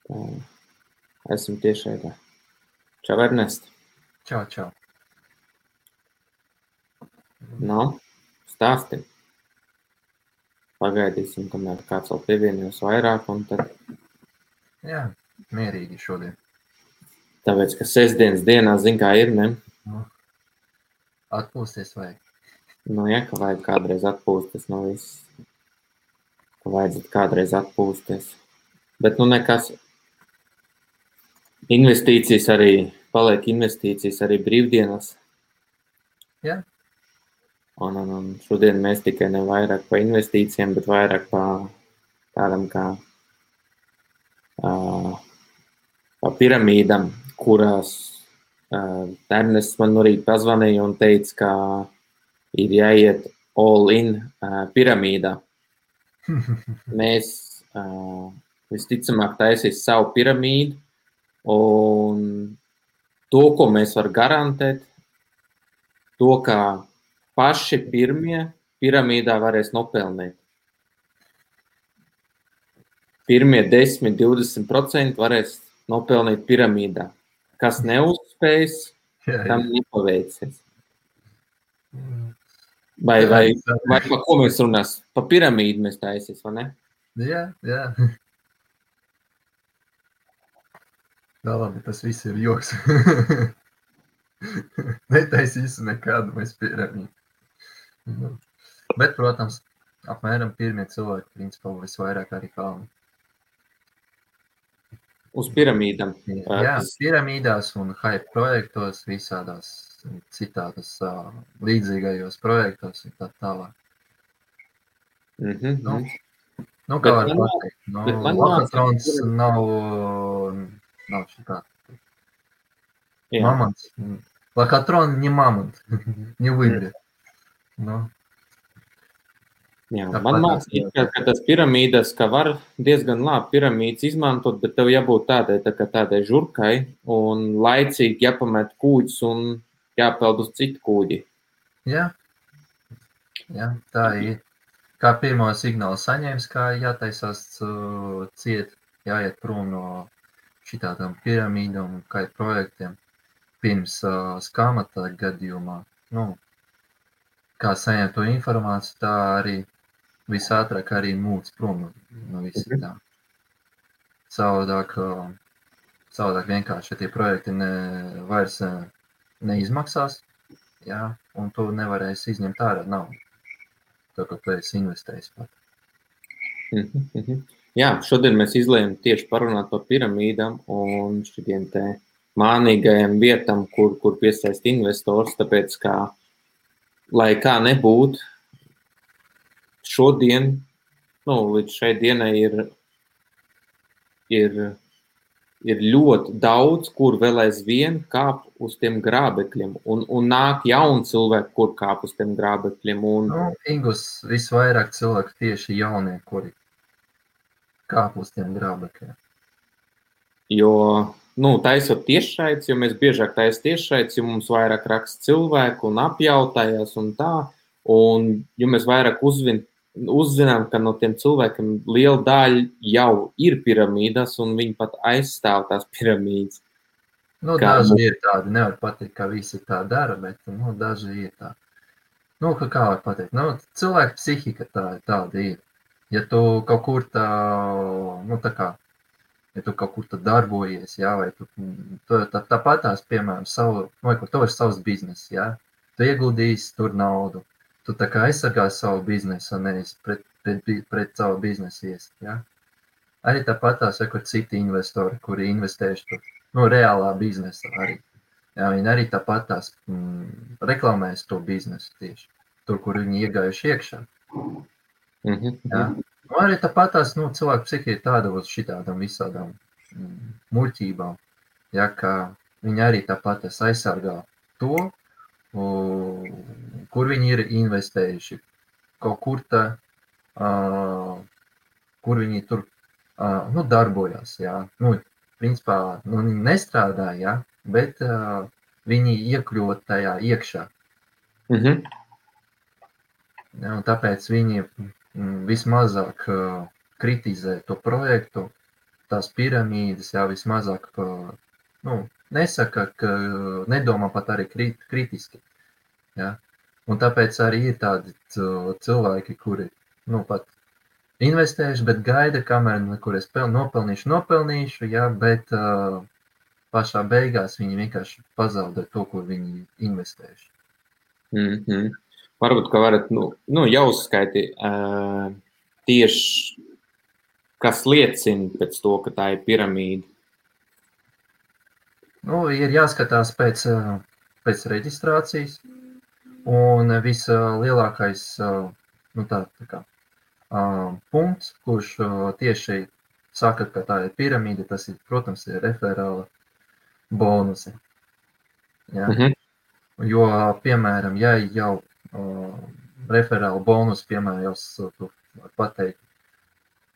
Tā, esmu tiešraidē. Čau, Ernest. Čau. Nu, stāsti. Pagaidīsim, kamēr kāds vēl pievienojos vairāk, un tad... Jā, mierīgi šodien. Tāpēc, ka sestdienas dienā, zin kā ir, ne? Atpūsties vajag. Nu, ja, ka vajag kādreiz atpūsties no viss. Ka vajadzētu kādreiz atpūsties. Bet, nu, nekas. Investīcijas arī, paliek investīcijas arī brīvdienas. Jā. Un šodien mēs tikai ne vairāk pa investīcijiem, bet vairāk pa tādam kā pa piramīdam, kurās Ernests man arī pazvanīja un teica, ka ir jāiet all in piramīdā. Mēs visticamāk taisīs savu piramīdu, un to, ko mēs var garantēt, to, kā paši pirmie piramīdā varēs nopelnīt. Pirmie 10–20% varēs nopelnīt piramīdā. Kas neuzspējas, tam nepaveicies. Vai pa ko mēs runās? Pa piramīdu mēs taisīs, vai ne? Jā. Tā labi, tas viss ir joks. Netaisīsim nekādu mēs piramīdu. Bet, protams, apmēram pirmie cilvēki, principā, visvairāk arī pelna. Uz piramīdām. Jā, piramīdās un hype projektos, visādās citādas līdzīgajos projektos un tā tālāk. Nu, kā var pateikt, Lakatrons nav šitā. Мамонт. Лохотрон не мамонт, не выиграет. Jā, man mācīja, ka tas piramīdas, ka var diezgan labi piramīdas izmantot, bet tev jābūt tādai žurkai un laicīgi jāpamet kūģis un jāpeld uz citu kūģi. Jā, tā ir. Kā pirmo signālu saņēmis, kā jātaisās ciet, jāiet prom no šitādām piramīdām un kā projektiem. Pirms skamata gadījumā, kā saņemt to informāciju, tā arī visātrāk arī mūc prom no visi tā. Savādāk vienkārši tie projekti vairs neizmaksās, jā, un tu nevarēsi izņemt ārā naudu, tā kā tu esi investējis pat. Jā, šodien mēs izlējam tieši parunāt par piramīdām un šitiem te mānīgajiem vietam, kur piesaist investors, tāpēc, kā, lai kā nebūtu, šodien, līdz šai dienai ir ļoti daudz, kur vēl aizvien kāp uz tiem grābekļiem, un nāk jauni cilvēki, kur kāp uz tiem grābekļiem. Ingus, visvairāk cilvēku tieši jaunie, kuri kāp uz tiem grābekļiem. Jo, taisot tiešraides, jo mēs biežāk taisam tiešraides, jo mums vairāk raksta cilvēku un apjautājās un tā, un jo mēs vairāk uzzinām, ka no tiem cilvēkiem liela daļa jau ir piramīdas, un viņi pat aizstāv tās piramīdas. Daži ir tādi, nevar pateikt, ka visi tā dara, bet, daži ir tādi. Kā var pateikt, cilvēka psihika tāda ir. Ja tu kaut kur ja tu kaut kur darbojies, jā, vai tu tāpatās, piemēram, kur tev ir savs biznes, jā, tu ieguldīsi tur naudu, tu tā kā aizsargās savu biznesu, nevis pret savu biznesu ies, jā. Arī tāpatās, kur citi investori, kuri investējuši tur, reālā biznesa arī, jā, viņi arī tāpatās reklamēs to biznesu tieši, tur, kur viņi iegājuši iekšā, jā. Arī tāpatās, cilvēku psihija ir tāda uz šitādām visādām muļķībām, ja, ka viņi arī tāpatās aizsargā to, kur viņi ir investējuši, kaut kur kur viņi tur darbojās, jā. Principā, viņi nestrādā, jā, bet viņi iekļūt tajā iekšā. Ja, un tāpēc viņi vismazāk kritizē to projektu, tās piramīdas, jā, vismazāk, nesaka, ka nedomā pat arī kritiski, jā. Un tāpēc arī ir tādi cilvēki, kuri, pat investējuši, bet gaida, kamēr, kur es nopelnīšu, jā, bet pašā beigās viņi vienkārši pazaudē to, ko viņi investējuši. Varbūt, ka varat, jau uzskaiti tieši, kas liecina pēc to, ka tā ir piramīda. Ir jāskatās pēc reģistrācijas, un vislielākais punkts, kurš tieši saka, ka tā ir piramīda, tas ir, protams, ir referāla bonusi. Ja? Jo, piemēram, ja jau referāla bonus, piemēram, jau var pateikt,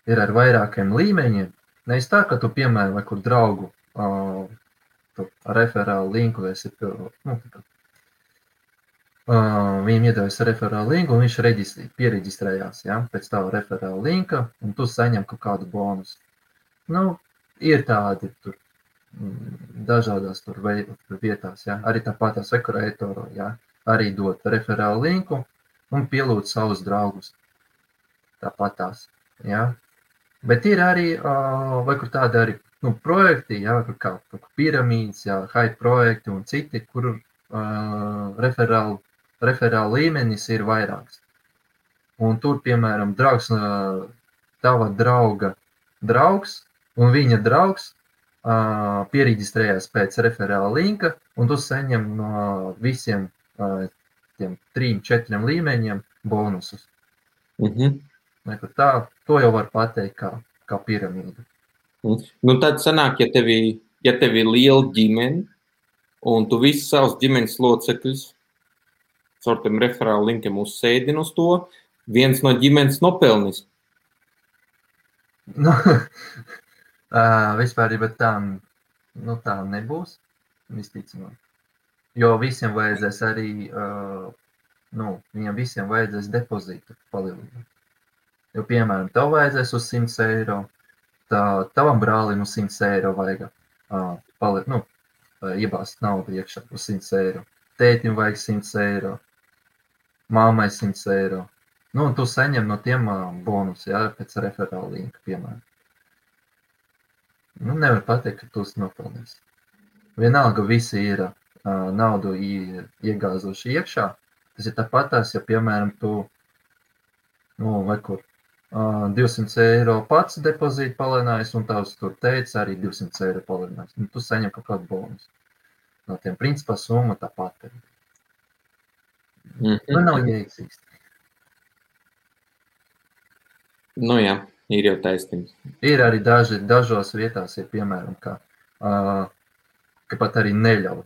ir ar vairākiem līmeņiem, nevis tā, ka tu, piemēram, vai kur draugu referālu linku esi, viņam iedevis referālu linku, un viņš piereģistrējās, ja, pēc tava referāla linka, un tu saņem kaut kādu bonusu. Ir tādi tur dažādās tur vietās, ja, arī tāpatās Ekurētoro, ja, arī dot referālu linku un pielūdz savus draugus. Tāpatās, ja. Bet ir arī, vai kur tādi arī, projekti, ja, kā piramīdas, ja, hype projekti un citi, kur referāla līmenis ir vairāks. Un tur, piemēram, draugs, tava drauga draugs un viņa draugs piereģistrējās pēc referāla linka, un tu saņem no visiem tiem 3-4 līmeņiem bonusus. Tā, to jau var pateikt kā piramīda. Tad sanāk, ja tev ir liela ģimene, un tu visus savus ģimenes locekļus caur tiem referāla linkiem uzsēdini uz to, viens no ģimenes nopelnis. Vispār, bet tā nebūs, visticamāk. Jo visiem vajadzēs arī, viņam visiem vajadzēs depozītu palielināt. Jo, piemēram, tev vajadzēs uz 100 eiro, tavam brālim uz 100 eiro vajag iebāzt naudu iekšā uz 100 eiro. Tētim vajag 100 eiro, māmai 100 eiro. Un tu saņem no tiem bonus, ja, pēc referāla linka, piemēram. Nevar pateikt, ka tu nopelnīsi. Vienalga visi ir naudu iegāzoši iekšā. Tas ir tāpatās, ja, piemēram, tu, vai kur, 200 eiro pats depozītu palielinājis, un tavs tur teica arī 200 eiro palielinājis. Tu saņem kaut kādu bonus. No tiem principā summa tāpat ir. Nav jēgas. Jā, ir jau taisnība. Ir arī dažos vietās, ir piemēram, ka pat arī neļauj.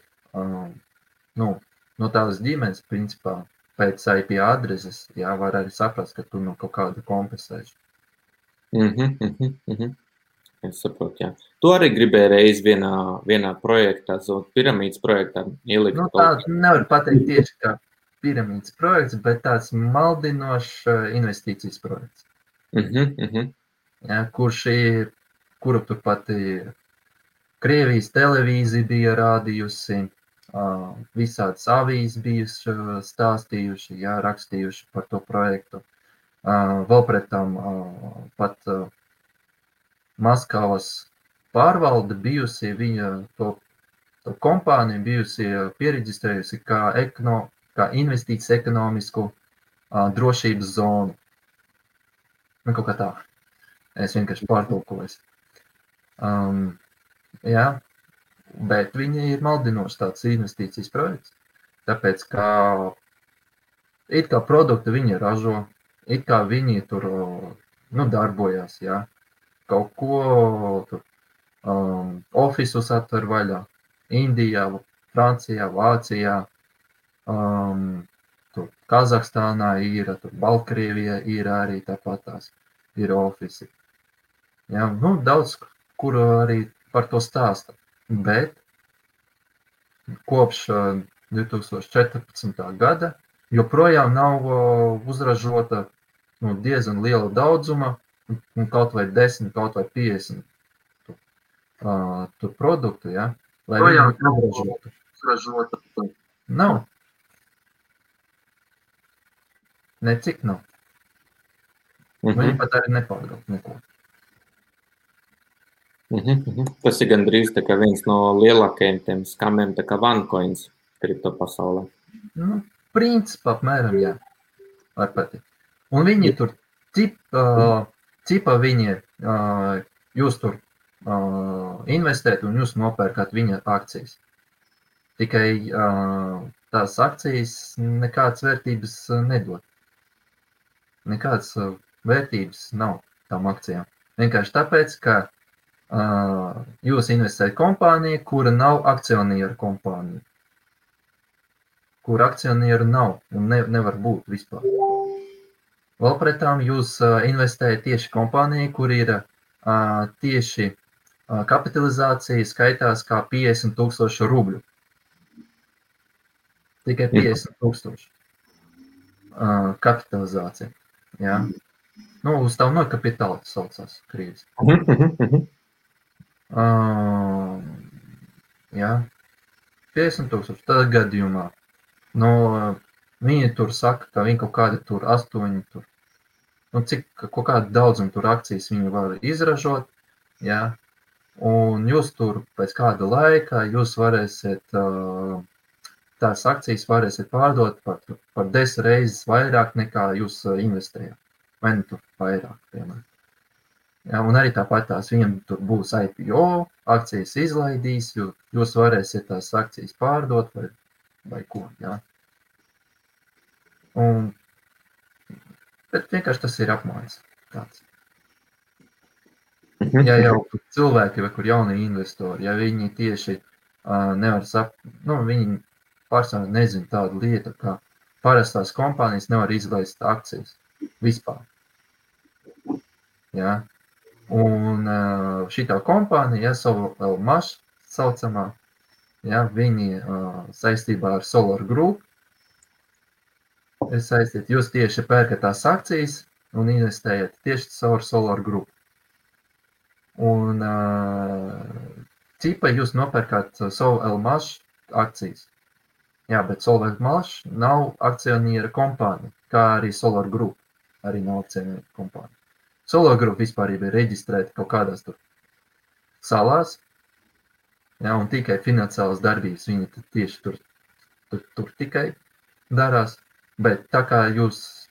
No tās ģimenes, principā, pēc IP adreses, jā, var arī saprast, ka tu kaut kādu kompensēši. Es saprotu, jā. Tu arī gribēji reiz vienā projektā, piramīdas projektā ielikt. Tā nevar pateikt tieši kā piramīdas projekts, bet tāds maldinošs investīcijas projekts. Ja, kuru turpat Krievijas televīzija bija rādījusi, visādas avīzes bijuši stāstījuši, ja, rakstījuši par to projektu. Vēl pret tam pat Maskavas pārvalde bijusi, viņa to kompāniju bijusi piereģistrējusi kā investīcijas ekonomisku drošības zonu. Kaut kā tā. Es vienkārši pārtulkoju. Jā, bet viņi ir maldinoši tāds investīcijas projekts. Tāpēc, kā it kā produktu viņi ražo, it kā viņi tur darbojās, jā. Kaut ko tur ofisus atver vaļā. Indijā, Francijā, Vācijā, tur Kazahstānā ir, tur Baltkrievijā ir arī tāpatās, ir ofisi. Jā, daudz, kur arī par to stāsta, bet kopš 2014. gada joprojām nav uzražota diezgan liela daudzuma, kaut vai 10, kaut vai 50 tur produktu, ja, lai viņu izražotu. Nav. Necik nav. Viņi pat arī nepārgalp neko. Tas ir gandrīz tā kā viens no lielākajiem tiem skamiem, tā kā OneCoins kripto pasaulē. Nu, principā apmēram, jā. Var patikt. Un viņi tur cipa viņi, jūs tur investēt un jūs nopērkat viņa akcijas. Tikai tās akcijas nekādas vērtības nedod. Nekādas vērtības nav tām akcijām. Vienkārši tāpēc, ka jūs investējat kompāniju, kura nav akcionieru kompānija. Kur akcionieru nav un nevar būt vispār. Vēl pretām jūs investējat tieši kompāniju, kur ir tieši kapitalizācija skaitās kā 50,000 rubļu. Tikai 50,000 kapitalizācija. Jā. Nu, uz tavu no kapitāla saucās krīzes. Jā. 50,000 tādā gadījumā. No, viņi tur saka, ka viņi kaut kādi tur 8 tur. Nu, cik kaut kādu daudzumu tur akcijas viņi var izražot. Jā. Un jūs tur pēc kāda laika jūs varēsiet, tās akcijas varēsiet pārdot par 10 reizes vairāk nekā jūs investējāt. Vai ne tur vairāk, piemēram. Jā, un arī tāpat tās viņam tur būs IPO, akcijas izlaidīs, jūs varēsiet tās akcijas pārdot vai ko, jā. Bet vienkārši tas ir apmaiņas tāds. Ja jau cilvēki vai kur jaunie investori, ja viņi tieši nevar viņi pārsvarā nezina tādu lietu, kā parastās kompānijas nevar izlaist akcijas vispār. Jā. Un šitā kompānija, SOLMash saucamā, jā, viņi saistībā ar Solar Group ir saistīti. Jūs tieši pērkat tās akcijas un investējat tieši caur Solar Group. Un cipa jūs nopērkat SOLMash akcijas. Jā, bet SOLMash nav akcioniera kompānija, kā arī Solar Group arī nav akcioniera kompānija. Solar Group vispār ir reģistrēta kaut kādās tur salās, jā, un tikai finansiālas darbības viņi tieši tur tikai darās. Bet tā kā jūs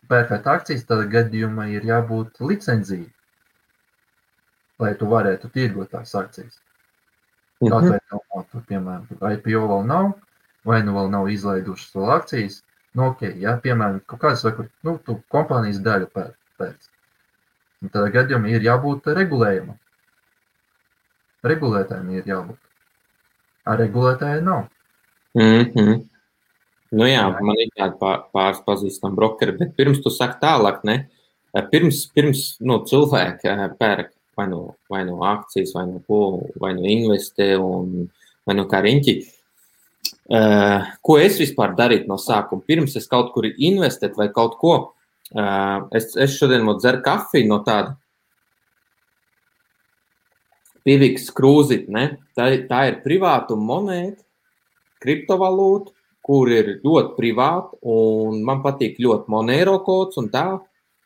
pērkat akcijas, tad gadījumā ir jābūt licenciju, lai tu varētu tirgot tās akcijas. Atvērt nav, tur, piemēram, IPO vēl nav, vai nu vēl nav izlaidušas vēl akcijas. Nu, ok, jā, piemēram, kaut kādas vai kur, tu kompānijas daļu pēc. Un tādā gadījumā ir jābūt regulējumam. Regulētājiem ir jābūt. Ar regulētāju nav. Nu jā, man ir tāda pāris pazīstama brokeri, bet pirms tu saki tālāk, ne? Pirms cilvēki pērk vai no akcijas, vai no ko, vai no investē, vai no kā riņķi. Ko es vispār darītu no sākuma? Pirms es kaut kur investēt vai kaut ko, es šodien dzeru kafiju no tāda Pivix krūzit, ne? Tā ir privāta monēta, kriptovalūta, kur ir ļoti privāta, un man patīk ļoti Monero kods un tā,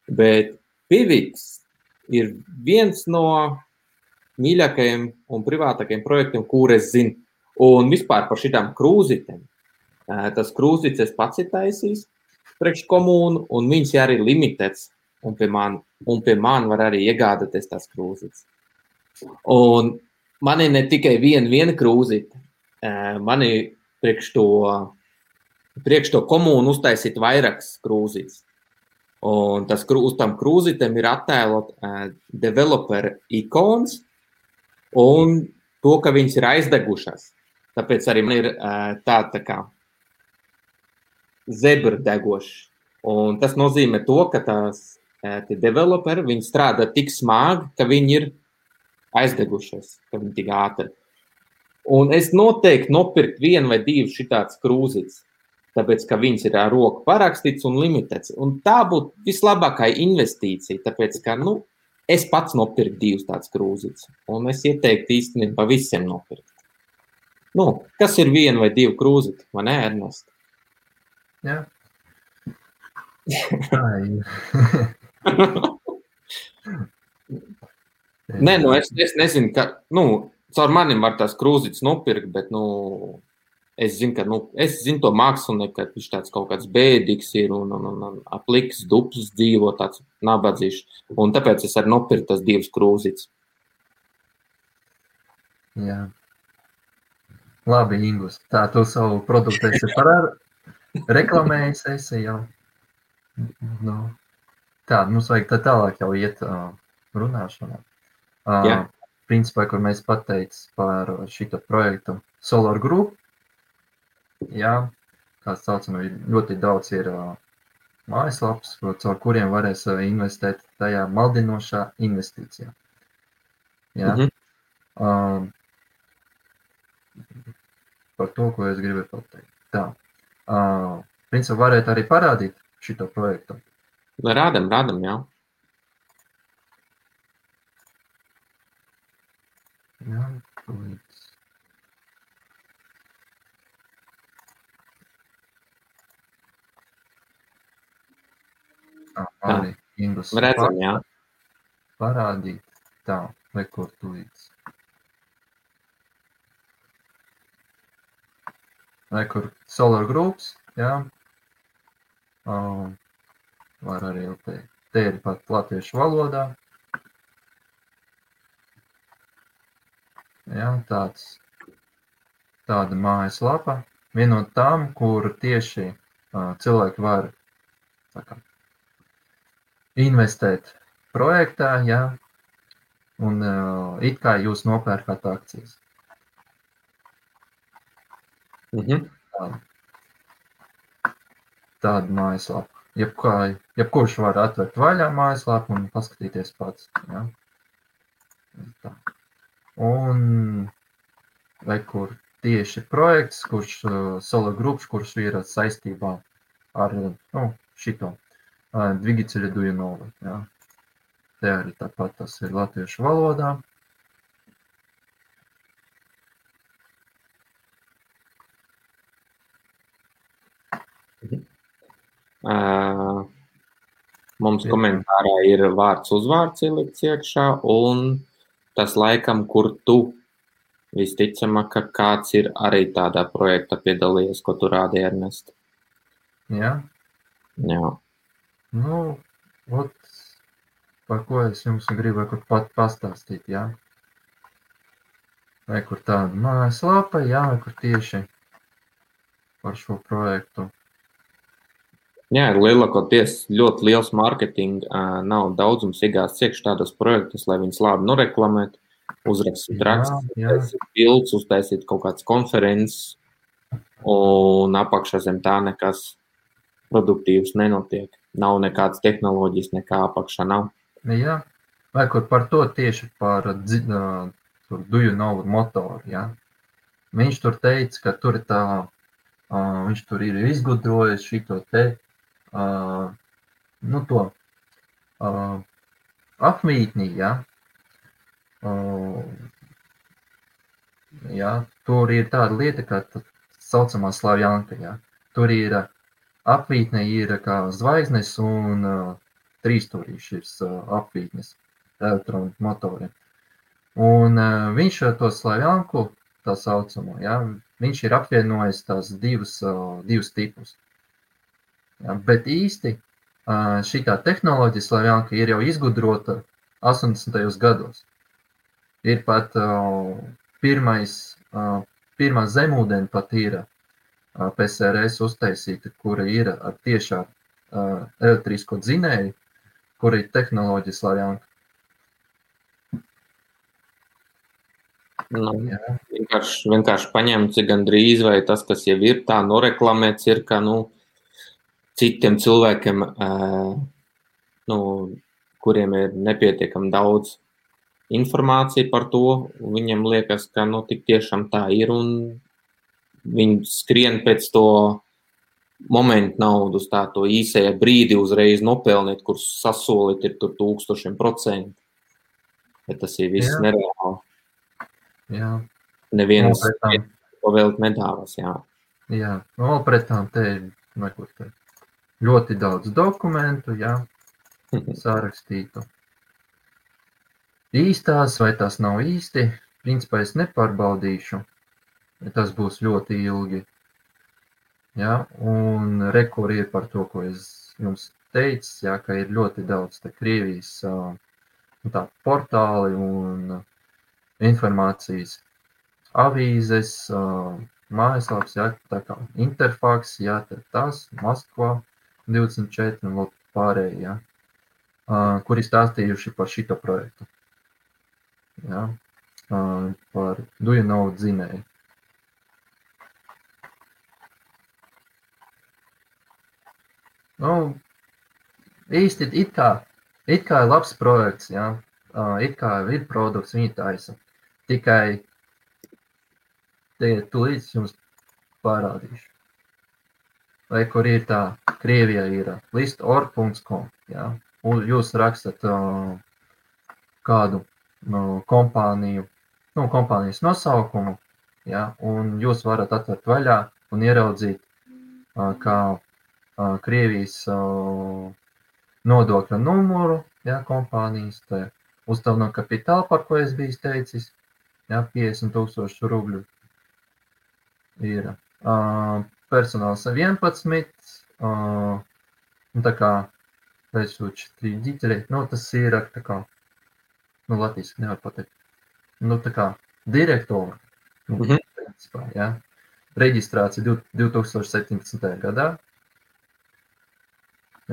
bet Pivix ir viens no mīļākajiem un privātākajiem projektiem, kur es zinu. Un vispār par šitām krūzitēm. Tas krūzits es pats ir taisījis priekš komūnu, un viņas ir arī limitēts, un pie man var arī iegādāties tās krūzits. Un man ir ne tikai viena krūzita, man ir priekš to komūnu uztaisīt vairākas krūzits. Un uz tam krūzitēm ir attēlot developer ikons un to, ka viņas ir aizdegušas. Tāpēc arī man ir tā kā zebra degošs. Un tas nozīmē to, ka tie developeri, viņi strādā tik smagi, ka viņi ir aizdegušies, ka viņi tik ātri. Un es noteikti nopirkt 1 vai 2 šitāds krūzits, tāpēc, ka viņas ir ar roku parakstīts un limitēts. Un tā būtu vislabākā investīcija, tāpēc, ka, Es pats nopirku 2 tāds krūzītes, un es ieteiktu īstenībā visiem nopirkt. Kas ir 1 vai 2 krūzīti, vai ne, Ernest? Jā. Nē, es nezinu, ka, caur manim var tās krūzītes nopirkt, bet, es zinu to mākslinieku, ka viņš tāds kaut kāds bēdīgs ir un apliks duplis dzīvo tāds nabadzīšs. Un tāpēc es arī nopirku tas 2 krūzītes. Jā. Labi, Ingus. Tā, tu savu produktu esi reklamējis esi jau. Tā, mums vajag tā tālāk jau iet runāšanā. Principā, kur mēs pateic par šito projektu Solar Group. Jā, kā saucam, ļoti daudz ir mājaslaps, caur kuriem varēs investēt tajā maldinošā investīcijā. Jā. Par to, ko es gribēju pateikt. Tā. Principā, varētu arī parādīt šito projektu. Rādam, jā. Jā, tūlīt. Arī Ingus. Redzam, jā. Parādīt. Tā, kur tūlīt. Kur Solar Groups, jā. Var arī teikt. Te ir pat latviešu valodā. Jā, tāda mājaslapa. Viena no tām, kur tieši cilvēki var investēt projektā, jā, un it kā jūs nopērkat akcijas. Tāda mājaslapa. Jebkurš var atvērt vaļā mājaslapu un paskatīties pats. Jā. Tā. Un vai kur tieši projekts, kurš Solar Groups, kurš ir saistībā ar šito Двигатели Дуйнова. Jā. Te arī tāpat tas ir latviešu valodā. Mums komentārā ir vārds uzvārds ielikts iekšā, un tas laikam, kur tu visticamāk, ka kāds ir arī tādā projektā piedalījies, ko tu rādi, Ernest. Jā. Jā. Par ko es jums gribu pat pastāstīt, jā. Vai kur tāda mājaslapa, jā, vai kur tieši par šo projektu. Jā, ir lielākoties ļoti liels mārketinga, nav daudzums iegāsts iekšā tādos projektus, lai viņus labi noreklamētu, uzrakstīt rakstus, uztaisīt bildes, uztaisīt kaut kādas konferences, un apakšā zem tā nekas produktīvs nenotiek. Nav nekādas tehnoloģijas, nekā apakšā nav. Jā, vai kur par to tieši par Dujunovu motoru, jā. Viņš tur teica, ka tur ir viņš tur ir izgudrojis šito te, to apmītni, jā. Jā, tur ir tāda lieta, kā saucamā Slavjanka, jā. Tur ir apvītne ir kā zvaigznes un trīsstūrīšs apvītnes elektronu motoriem. Un viņš to Slavjanku, tā saucamo, jā, viņš ir apvienojis tās divus tipus. Jā, bet īsti šitā tehnoloģija Slavjanka ir jau izgudrota 80. gados. Ir pat pirmā zemūdeni pat ir PSRS uztaisīta, kura ir ar tiešā elektrisko dzinēju, kura ir tehnoloģija Slavjanka. Vienkārši paņemts gandrīz, vai tas, kas jau ir tā noreklamēts, ir, ka citiem cilvēkiem, kuriem ir nepietiekami daudz informācija par to, viņiem liekas, ka tik tiešām tā ir, un viņi skrien pēc to momentu naudu uz to īsajā brīdi uzreiz nopelnīt, kur sasolīt ir tur 1000%. bet tas ir viss nereāli. Jā. Neviens pavēlt nedāvas, jā. Jā, vēl pret tām te ir ļoti daudz dokumentu, jā, sārakstītu. Īstās vai tās nav īsti, principā es nepārbaudīšu, tas būs ļoti ilgi. Jā, un rekuri ir par to, ko es jums teicu, jā, ka ir ļoti daudz te Krievijas tā portāli un informācijas avīzes, mājaslaps, jā, tā kā Interfax, jā, tas, Maskvā 24 un vēl pārējie, jā, kuri stāstījuši par šito projektu. Jā, par Do You Know dzinēju. Nu, īsti it kā ir labs projekts, jā, it kā ir produkts, viņi taisa. Tikai tūlīt jums parādīšu. Vai kur ir tā, Krievijā ir list.org.com, jā, un jūs rakstat kādu kompāniju, kompānijas nosaukumu, jā, un jūs varat atvert vaļā un ieraudzīt, kā Krievijas nodokļa numuru, jā, kompānijas, tā uzdevuma kapitāla, par ko es biju teicis, jā, 50,000 rubļu ir. Personāls 11, tā kā учредители, tas ir tā kā, latviski nevar pateikt, tā kā direktori, principā, jā, reģistrācija 2017. gadā,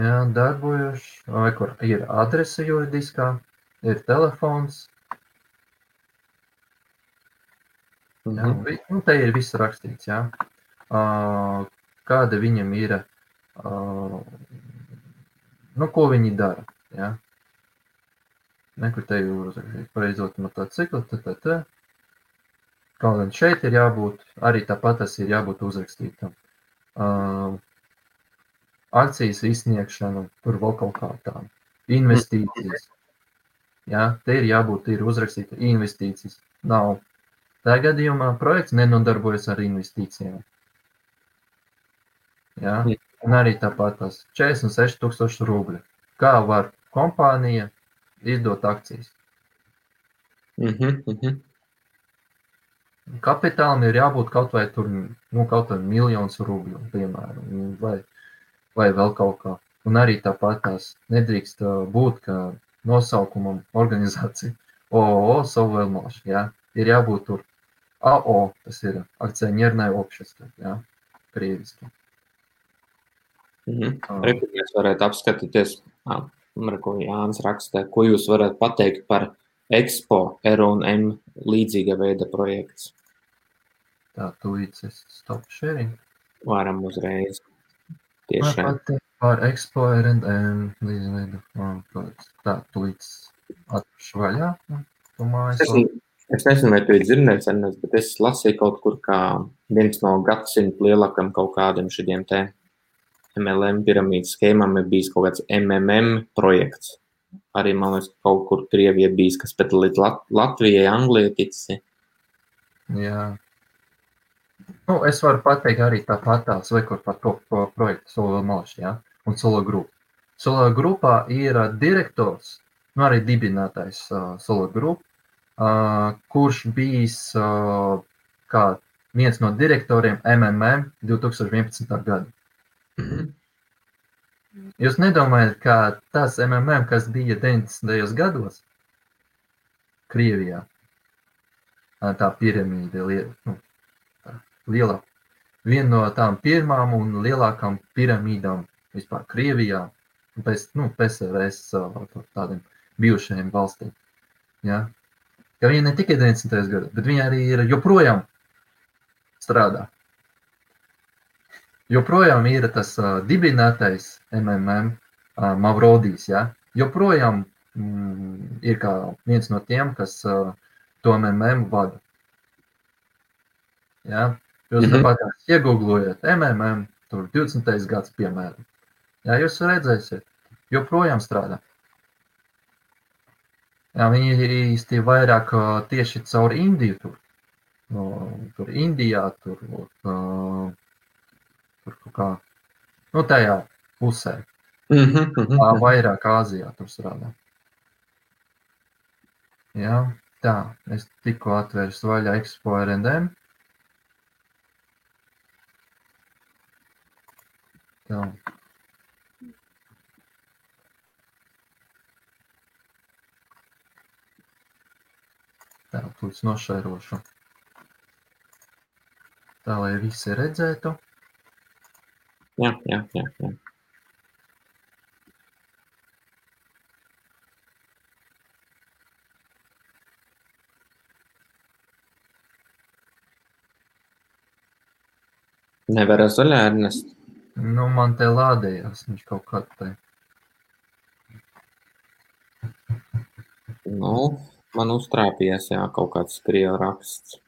jā, darbojuši, vai kur ir adrese juridiskā, ir telefons, jā, te ir viss rakstīts, jā, kāda viņam ir, ko viņi dara, jā. Nekur te uzrakstīt pareizot motociklu, Kaut gan šeit ir jābūt, arī tāpat tas ir jābūt uzrakstītam. Akcijas izsniegšana, tur vēl kaut kā tā. Investīcijas. Jā, te ir jābūt, ir uzrakstīta investīcijas. Nav. Tā gadījumā projekts nenodarbojas ar investīcijām. Jā, un arī tāpat tas 46,000 rubļu. Kā var kompānija izdot akcijas? Kapitālam ir jābūt kaut vai tur, kaut vai 1,000,000 rubļu, piemēram, vai vēl kaut kā. Un arī tāpat tās nedrīkst būt, ka nosaukumam organizācija ООО Sovelmash, jā, ir jābūt tur АО, tas ir akcionierное общество, jā, krieviski. Rekur mēs varētu apskatīties, ko Jānis rakstē, ko jūs varat pateikt par Expo R&M līdzīga veida projekts? Tā, tūlīt es stop sharing. Varam uzreiz. Tieši. Par Expo R&M līdzīga veida. Tā, tūlīt atpušu vaļā. Es nezinu, vai tu ir dzirdējis, bet es lasīju kaut kur, kā viens no gadsimta lielākam kaut kādiem šidiem te MLM piramīdas schēmām ir bijis kaut kāds MMM projekts. Arī, man liekas, kaut kur Krievija bijis, kas pēc Latvijai, Anglijai tici. Jā. Es varu pateikt arī tāpatās, vai kur par to projektu Sovelmash, jā, un Solo Group. Solo Grupā ir direktors, arī dibinātais Solo Group, kurš bijis kā viens no direktoriem MMM 2011. gada. Jūs nedomājat, ka tas MMM, kas bija 90. gados Krievijā, tā piramīda lielā, viena no tām pirmām un lielākām piramīdām vispār Krievijā, pēc PSRS tādiem bijušajiem valstīm. Ja? Ka viņa ne tikai 90. gados, bet viņa arī ir joprojām strādā. Joprojām ir tas dibinātais MMM Mavrodijs, ja? Joprojām ir kā viens no tiem, kas to MMM vada. Ja? Jūs tāpat iegooglojat MMM, tur 20. gads, piemēram. Ja, jūs redzēsiet, joprojām strādā. Jā, viņi īsti vairāk tieši caur Indiju tur. Tur Indijā, tur kaut kā, tajā pusē. Vairāk Āzijā tur strādā. Jā, tā, es tikko atvērsu vaļā Expo R&M. Tā. Tā, tūlīt nošērošu. Tā, lai visi redzētu. Jā. Nevar zaļā Ernest. Man te lādējās, viņš kaut kā te. Man uztrāpījās, jā, kaut kāds krievu raksts.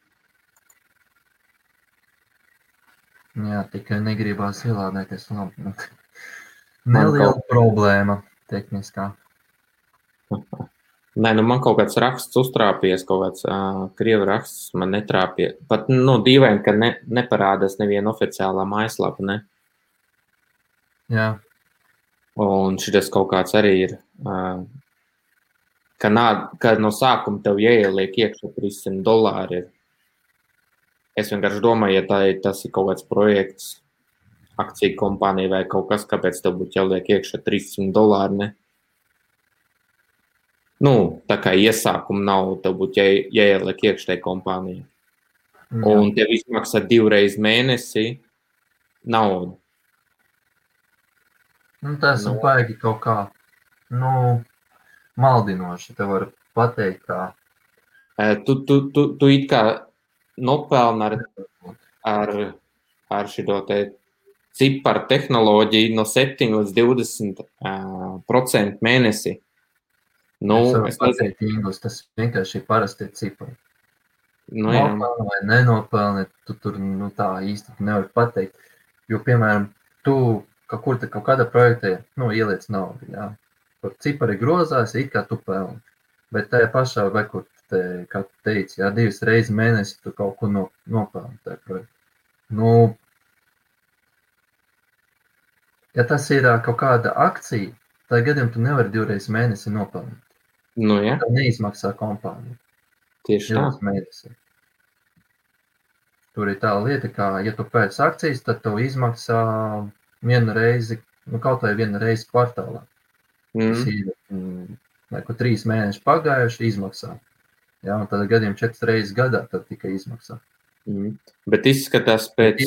Jā, tikai negribās ielādēties labi. Neliela problēma tehniskā. Nē, man kaut kāds raksts uztrāpies, kaut kāds krievu raksts man netrāpīja. Pat, dīvaini, ka neparādās neviena oficiālā mājaslapa, ne? Jā. Un šitas kaut kāds arī ir, ka no sākuma tev jāieliek iekšā $300. Es vienkārši domāju, ja tas ir kaut kāds projekts, akciju kompānija vai kaut kas, kāpēc tev būtu jāliek iekšā $300, ne? Tā kā iesākuma nav, tev būtu jāieliek iekšā kompānija. Jā. Un tev izmaksā 2 reizes mēnesī naudu. Tas ir baigi kaut kā, maldinoši, te var pateikt kā. Tu it kā nopelna ar šito te ciparu tehnoloģiju no 7 līdz 20% mēnesī. Es pateikt, Ingūs, tas vienkārši ir parasti cipari. Nopelni vai nenopelni, tu tur tā īsti nevar pateikt. Jo, piemēram, tu kaut kādā projektē ieliec naudu, jā. Kur cipari grozās, it kā tu pelni. Bet tajā pašā, vai kur kā tu teici, jā, 2 reizes mēnesi tu kaut ko nopelni tajā projektā. Ja tas ir kaut kāda akcija, tad gadiem tu nevari 2 reizes mēnesi nopelnīt. Jā. Tev neizmaksā kompānija. Tieši tā. Mēnesi. Tur ir tā lieta, kā, ja tu pēc akcijas, tad tev izmaksā vienu reizi, kaut vai vienu reizi kvartālā. Tas ir, 3 mēneši pagājuši izmaksā. Jā, un tad gadiem 4 reizes gadā tad tikai izmaksā. Bet izskatās pēc...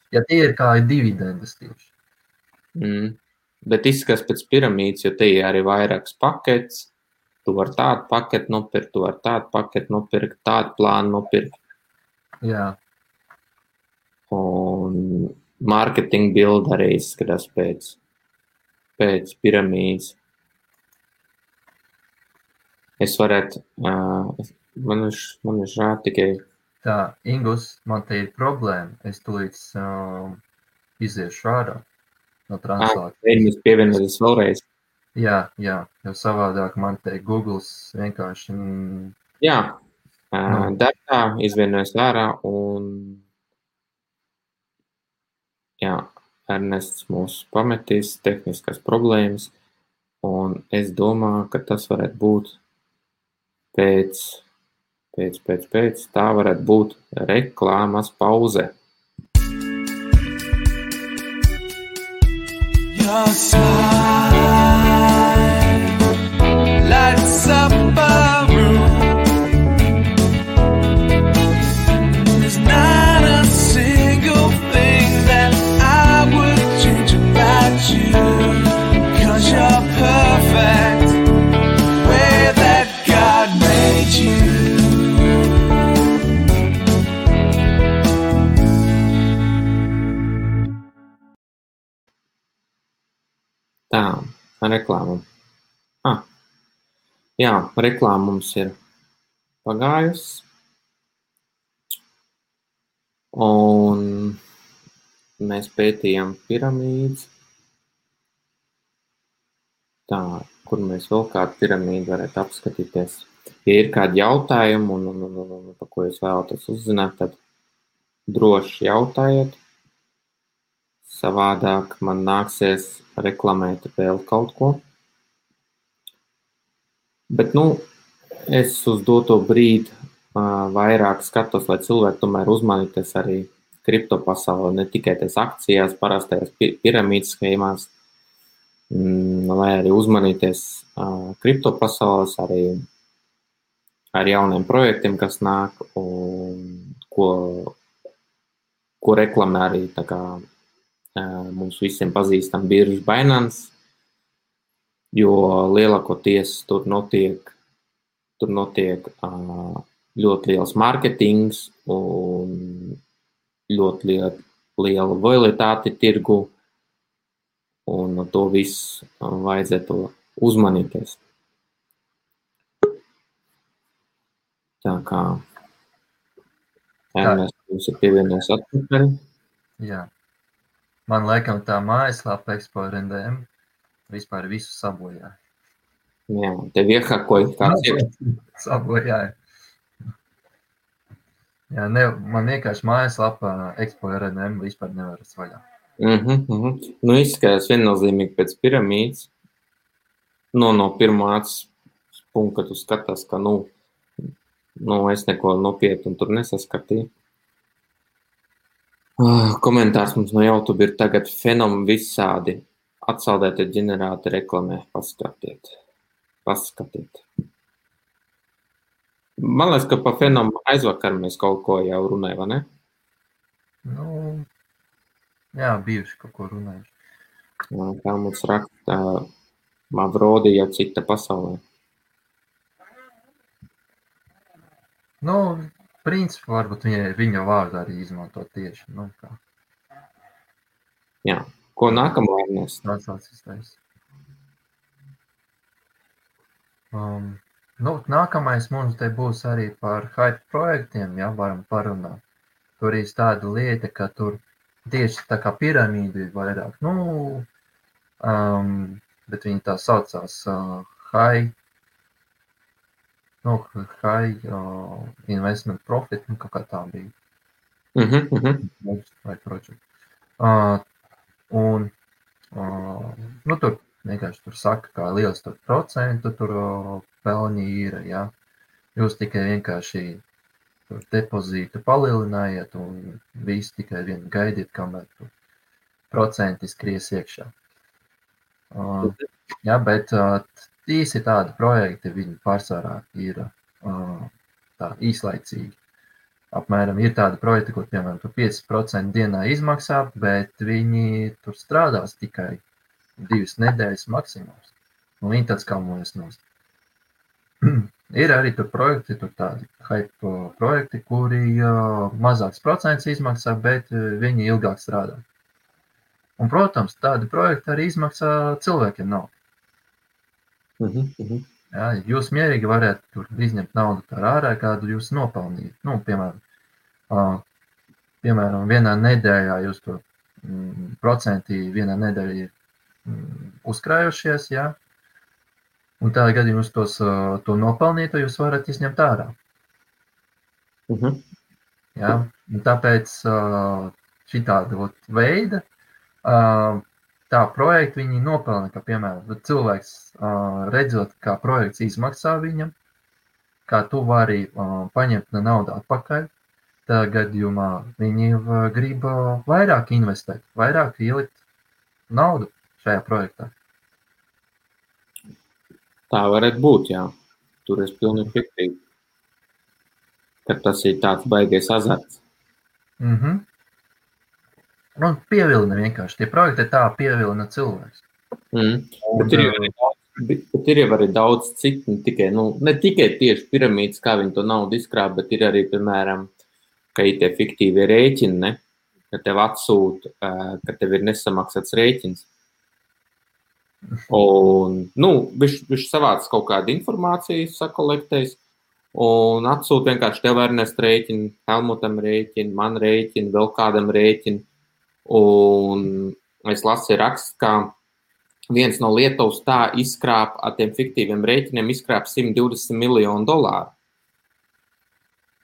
Ja tie ir kā dividendes tieši. Bet izskatās pēc piramīdas, jo te ir arī vairākas paketes. Tu vari tādu paketi nopirkt, tu vari tādu paketi nopirkt, tādu plānu nopirkt. Jā. Un marketing build arī izskatās pēc piramīdas. Es varētu, man ir žēl tikai... Tā, Ingus, man te ir problēma. Es tūlīt iziešu ārā no translācijas. Mēs pievienoties vēlreiz. Jā, jo savādāk man te Googles vienkārši... Jā, darbā izvienojas ārā un jā, Ernests mūs pametīs tehniskas problēmas un es domāju, ka tas varētu būt pēc tā varētu būt reklāmas pauze. Your smile lights up a room. There's not a single thing that I would change about you, 'cause you're perfect the way that God made you. Tā, reklāma. Jā, reklāma mums ir pagājusi. Un mēs pētījām piramīdas. Tā, kur mēs vēl kādu piramīdu varētu apskatīties. Ja ir kādi jautājumi un par ko jūs vēlaties uzzināt, tad droši jautājiet. Savādāk man nāksies reklamēt vēl kaut ko. Bet, es uz doto brīdi vairāk skatos, lai cilvēki tomēr uzmanīties arī kripto pasaulē, ne tikai tās akcijās, parastajās piramīdas schēmās, lai arī uzmanīties kripto pasaules, arī ar jauniem projektiem, kas nāk, un ko reklamē arī tā kā mums visiem pazīstam birža Binance, jo lielākoties tur notiek ļoti liels marketings un ļoti liela volatilitāte tirgu, un to visu vajadzētu uzmanīties. Tā kā Ernest ir pievienojies atpakaļ. Jā. Man laikam tā mājaslapa Expo.RNDM vispār visu sabojāja. Jā, tev iehakoja kāds sabojāja. Jā, man vienkārši mājaslapa Expo.RNDM vispār nevar vaļā. Izskatās viennozīmīgi pēc piramīdas. No pirmā acis punkta, kad tu skatās, ka es neko nopietnu tur nesaskatīju. Komentārs mums no YouTube ir tagad fenom visādi. Atsaldētie ģenerāti reklamē. Paskatiet. Man liekas, ka pa fenom aizvakar mēs kaut ko jau runājam, vai ne? Jā, bijuši kaut ko runājuši. Tā mums raksta Mavrodi jau cita pasaulē. Principā varbūt viņa vārdu arī izmanto tieši. Jā. Ko nākamā Ernest? Nākamais mums te būs arī par hype projektiem, jā, varam parunāt. Tur ir tāda lieta, ka tur tieši tā kā piramīda ir vairāk, bet viņi tā saucās high investment profit, kaut kā tā bija. Vai project. Tur vienkārši tur saka, kā liels tur procentu tur pelņi ir, jā. Jūs tikai vienkārši tur depozītu palielinājiet un visu tikai vien gaidiet, kamēr tur procenti skries iekšā. Jā, bet īsi tādi projekti, viņi pārsvarā ir tā īslaicīgi. Apmēram ir tādi projekti, kur, piemēram, tur 5% dienā izmaksā, bet viņi tur strādās tikai 2 nedēļas maksimums. Viņi tāds kalmojas nost. Ir arī tur projekti, tur tādi hype projekti, kuri mazāks procents izmaksā, bet viņi ilgāk strādā. Un, protams, tādi projekti arī izmaksā cilvēkiem naudu. Jā, jūs mierīgi varētu tur izņemt naudu par ārā, kādu jūs nopelnījat. Piemēram, vienā nedēļā jūs tur procenti vienā nedēļā ir uzkrājušies, jā. Un tādā gadījumā jūs to nopelnīt, jūs varat izņemt ārā. Jā, un tāpēc šitāda veida tā projekti viņi nopelna, ka, piemēram, cilvēks redzot, kā projekts izmaksā viņam, kā tu vari paņemt naudu atpakaļ, tā gadījumā viņi grib vairāk investēt, vairāk ielikt naudu šajā projektā. Tā varētu būt, jā. Tur es pilnīgi piekrītu, ka tas ir tāds baigais azarts. Un pievilina vienkārši. Tie projekti tā pievilina cilvēks. Bet ir jau arī daudz citu, ne tikai tieši piramīdas, kā viņi to naudu izkrāp, bet ir arī, piemēram, ka ir tie fiktīvie rēķini, ne? Ka tev atsūta, ka tev ir nesamaksāts rēķins. Un, viņš savāc kaut kādu informāciju, sakolektējis, un atsūta vienkārši tev Ernest rēķinu, Helmutam rēķinu, man rēķinu, vēl kādam rēķinu. Un es lasīju rakstu, kā viens no Lietuvas tā izkrāp ar tiem fiktīviem rēķiniem, izkrāp $120 miljonu.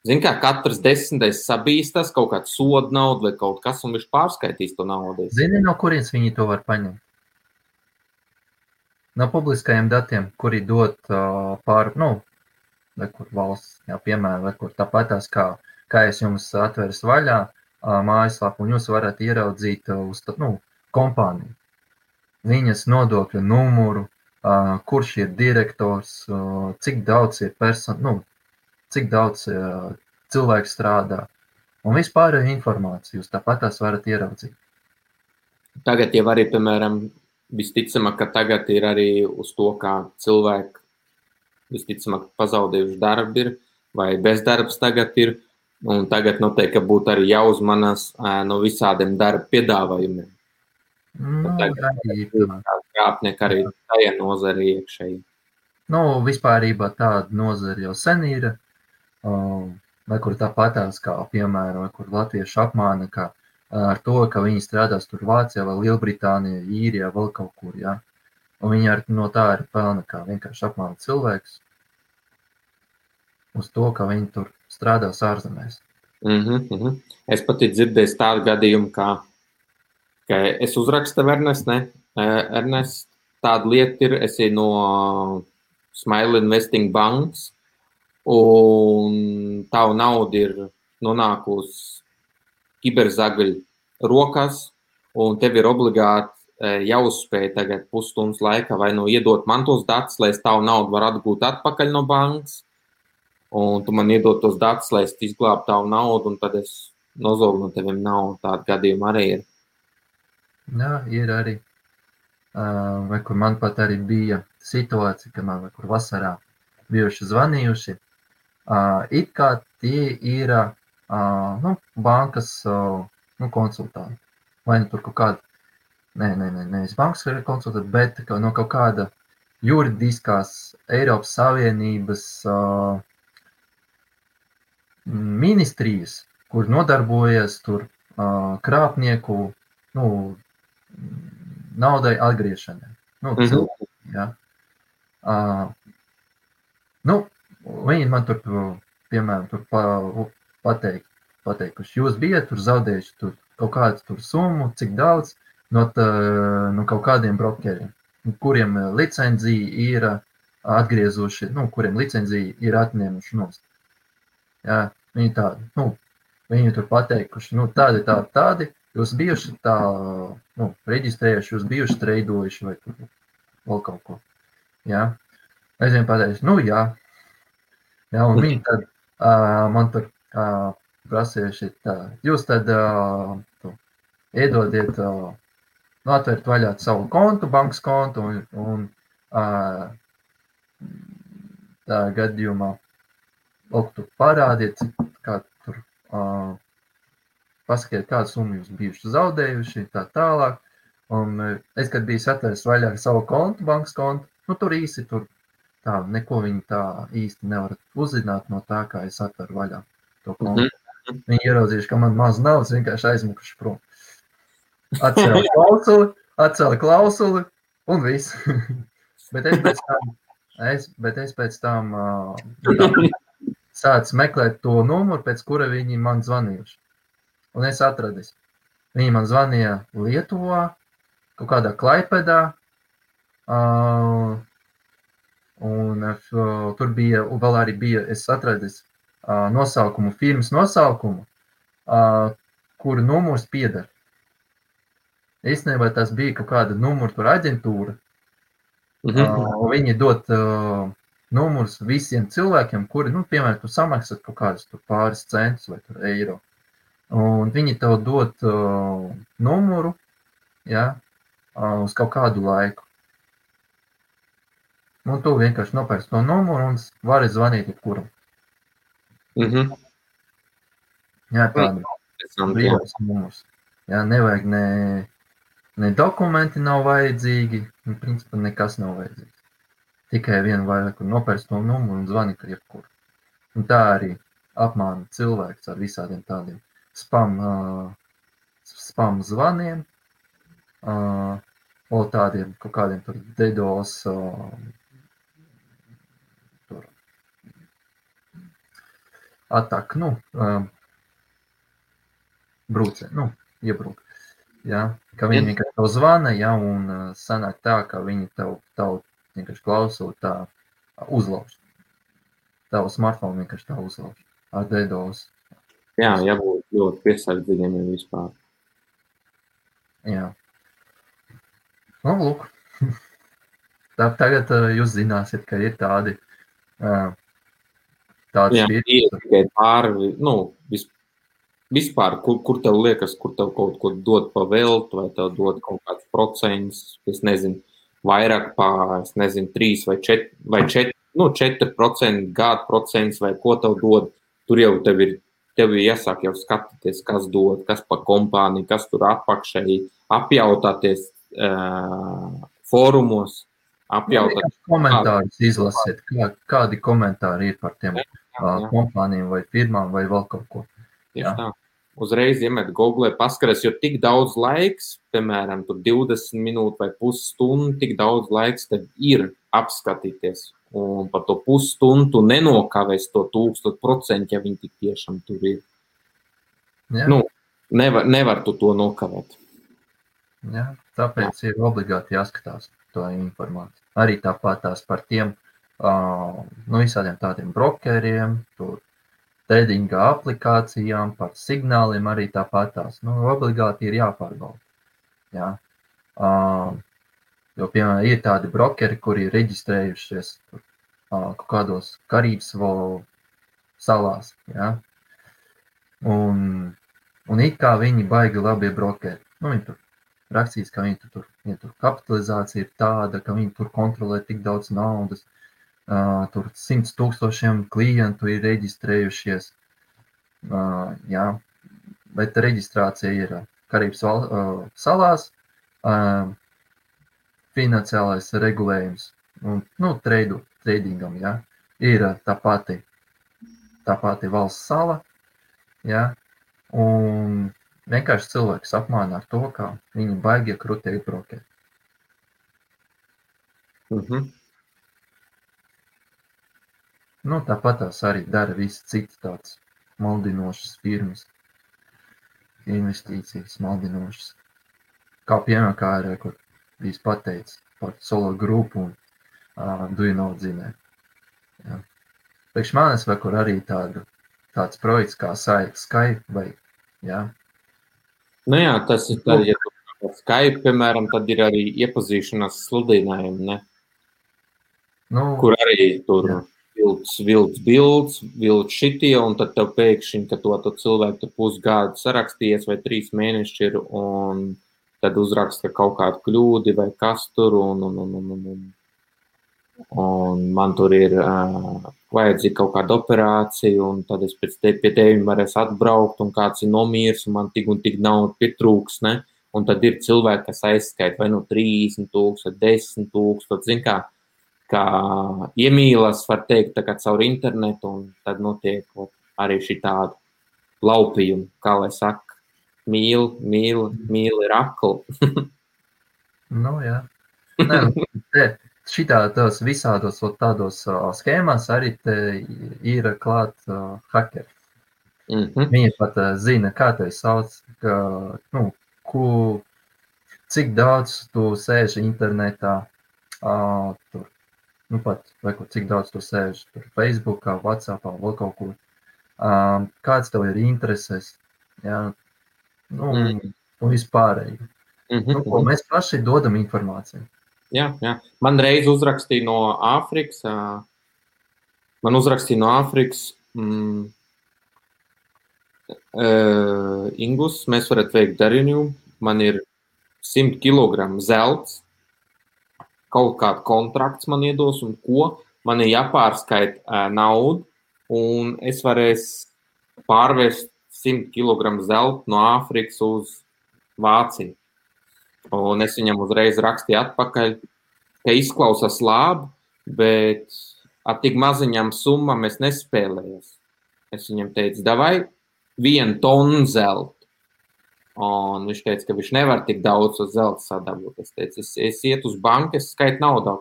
Zini, kā katrs 10. sabīstas kaut kāds soda naudu vai kaut kas, un viņš pārskaitīs to naudu. Zini, no kurienes viņi to var paņemt? No publiskajiem datiem, kuri dot vai kur valsts, piemēram, vai kur tāpatās, kā es jums atveru vaļā mājaslapu, un jūs varat ieraudzīt uz kompāniju. Viņas nodokļu numuru, kurš ir direktors, cik daudz ir cik daudz cilvēku strādā, un vispārējo informāciju jūs tāpatās varat ieraudzīt. Tagad jau arī, piemēram, visticamāk, ka tagad ir arī uz to, kā cilvēki visticamāk pazaudējuši darbu ir, vai bezdarbs tagad ir, un tagad noteikti būtu arī jāuzmanās no visādiem darba piedāvājumiem. Krāpnieki arī tajā nozari iekšēji. Vispārībā tāda nozara jau sen ir, vai kur tāpatās, kā piemēram, vai kur latvieši apmāna, kā ar to, ka viņi strādās tur Vācijā vai Lielbritānijā, Īrijā, vēl kaut kur, ja? Un viņi no tā arī pelna, kā vienkārši apmāna cilvēkus uz to, ka viņi tur strādās ārzemēs. Es pat dzirdēju tādu gadījumu, ka es uzrakstu Ernest, tāda lieta ir, es no Smile Investing bankas, un tavu naudu ir nonākusi kiberzagaļu rokās, un tev ir obligāti jāuzspēj tagad pusstundas laikā vai iedot man tos datus, lai es tavu naudu varu atgūt atpakaļ no bankas, un tu man iedod tos datus, lai es izglābu tavu naudu, un tad es nozogu no teviem naudu. Tāda gadījuma arī ir. Jā, ir arī. Vai kur man pat arī bija situācija, ka man vai kur vasarā bijuši zvanījuši. It kā tie ir bankas konsultanti. Vai tur kaut kāda, nevis bankas konsultanti, bet no kaut kāda juridiskās Eiropas Savienības ministrijas, kur nodarbojas tur krāpnieku naudai atgriešanai. Cilvēki, ja. Viņi man tur, piemēram, pateikuši, jūs bijat tur zaudējuši tur kaut kādu tur summu, cik daudz no kaut kādiem brokeriem, kuriem licenzija ir atgriezuši, kuriem licenzija ir atņēmuši nost. Jā, viņi tādi, viņi tur pateikuši, tādi, jūs bijuši tā, reģistrējuši, jūs bijuši treidojuši vai tur vēl kaut ko. Jā. Es viņiem pateicu, jā. Jā, un viņi tad man tur prasījuši tā, jūs tad iedodiet, atvērt vaļā savu kontu, bankas kontu, un tā gadījumā tur parādiet, kā tur pasakiet, kādu summu jūs bijuši zaudējuši, tā tālāk. Un es, kad biju atvērs vaļā savu kontu, bankas kontu, tur īsti tur tā, neko viņi tā īsti nevar uzzināt no tā, kā es atveru vaļā to kontu. Viņi ieraudzījuši, ka man maz naudas vienkārši aizmukuši prom. Atcēla klausuli un viss. Bet es pēc tam sācu meklēt to numuru, pēc kura viņi man zvanījuši. Un es atradis. Viņi man zvanīja Lietuvā, kaut kādā Klaipedā, un tur bija, vēl arī bija, es atradis nosaukumu, firmas nosaukumu, kuru numurs pieder. Īstenībā tas bija kaut kāda numuru tur aģentūra, un viņi dot numurs visiem cilvēkiem, kuri, piemēram, tu samaksat kaut kādus tur pāris centus vai tur eiro. Un viņi tev dot numuru, ja, uz kaut kādu laiku. Un tu vienkārši nopērci to numuru un vari zvanīt jebkuram. Jā, tāda brīvais numurs. Jā, nevajag ne dokumenti nav vajadzīgi, principā nekas nav vajadzīgs. Tikai vienu vajag nopērci to numuru un zvanīt ar jebkuru. Un tā arī apmāna cilvēks ar visādiem tādiem spam zvaniem, O tādiem, kaut kādiem tur DDoS, tur atak, brūcē, iebrūk. Ja? Ka viņi vienkārši tev zvana, ja, un sanāk tā, ka viņi tev vienkārši klausot tā uzlauž. Tavu smartphone vienkārši tā uzlauž ar DDoS. Jā, jābūt ļoti piesardzīgiem vispār. Jā. Nu, lūk. Tagad jūs zināsiet, ka ir tādi Jā, tikai pāri, vispār, kur tev liekas, kur tev kaut ko dod pa veltu, vai tev dod kaut kāds procents, es nezinu, vairāk pār, 3 vai 4, 4% gada procents, vai ko tev dod, tur jau tev ir jāsāk jau skatīties, kas dod, kas pa kompāniju, kas tur apakšēji, apjautāties fórumos, apjautāt. Komentārus izlasiet, kādi komentāri ir par tiem kompānijām vai firmām vai vēl kaut ko. Tieši tā. Uzreiz iemet Google, paskaties, jo tik daudz laiks, piemēram, tur 20 minūtes vai pusstundu, tik daudz laiks tev ir apskatīties. Un par to pusstundu nenokavēs to 1000%, ja viņi tik tiešām tur ir. Jā. Nevar tu to nokavēt. Jā, tāpēc ir obligāti jāskatās to informāciju. Arī tāpat tās par tiem visādiem tādiem brokeriem, tur tradinga aplikācijām, par signāliem arī tāpat tās. Obligāti ir jāpārbauda. Jā. Jo, piemēram, ir tādi brokeri, kuri ir reģistrējušies kaut kādos Karības salās. Jā. Un it kā viņi baigi labie brokeri. Viņi tur rakstīs, ka viņi tur kapitalizācija ir tāda, ka viņi tur kontrolē tik daudz naudas. Tur 100 000 klientu ir reģistrējušies. Jā, bet reģistrācija ir Karības salās, finansiālais regulējums un tradingam, jā, ir tā pati valsts sala, jā, un vienkārši cilvēks apmāna ar to, ka viņi baigie krutēji brokeri. Tāpat tās arī dara visi citi tāds maldinošas firmas, investīcijas maldinošas. Kā piemēram, kā ir, kur bijis pateicis par solo grupu un Do You Know zinē. Priekš manis vai kur arī tāds projekts kā Skype vai, jā. Jā, tas ir tad, ja tu Skype, piemēram, tad ir arī iepazīšanās sludinājumi, ne? Kur arī tur... Jā. Vilds šitie, un tad tev pēkšņi, ka to cilvēku tu pusgadu sarakstījies vai 3 mēneši ir, un tad uzraksta kaut kādu kļūdi vai kas tur, un man tur ir vajadzīga kaut kāda operācija, un tad es pēc pie tevim varēs atbraukt, un kāds ir nomirs, un man tik un tik naudu pietrūks, ne? Un tad ir cilvēki, kas aizskaita vai 30 000, 10 000, zin kā iemīlas, var teikt, tā kā caur internetu, un tad notiek arī šī tāda laupījuma, kā lai saka, mīl ir akli. Jā. Šitādos visādos tādos schēmās arī te ir klāt hakeri. Viņi pat zina, kā te sauc, cik daudz tu sēži internetā, tur. Pat, vai cik daudz tu sēž tur Facebookā, WhatsAppā, vēl kaut kur. Kāds tev ir intereses, jā, un vispārēji. Ko mēs paši dodam informāciju. Jā. Man reiz uzrakstīja no Āfrikas, Ingus, mēs varat veikt darījumu, man ir 100 kilogramu zelts, kaut kāds kontrakts man iedos un ko, man ir jāpārskaita naudu, un es varēšu pārvērst 100 kg zelta no Āfrikas uz Vāciju. Un es viņam uzreiz rakstīju atpakaļ, ka izklausās labi, bet ar tik maziņām summām es nespēlējos. Es viņam teicu, davai 1 tonu zelta. Un viņš teica, ka viņš nevar tik daudz uz zelta sadabūt. Es teicu, es iet uz banku, es skaitu naudu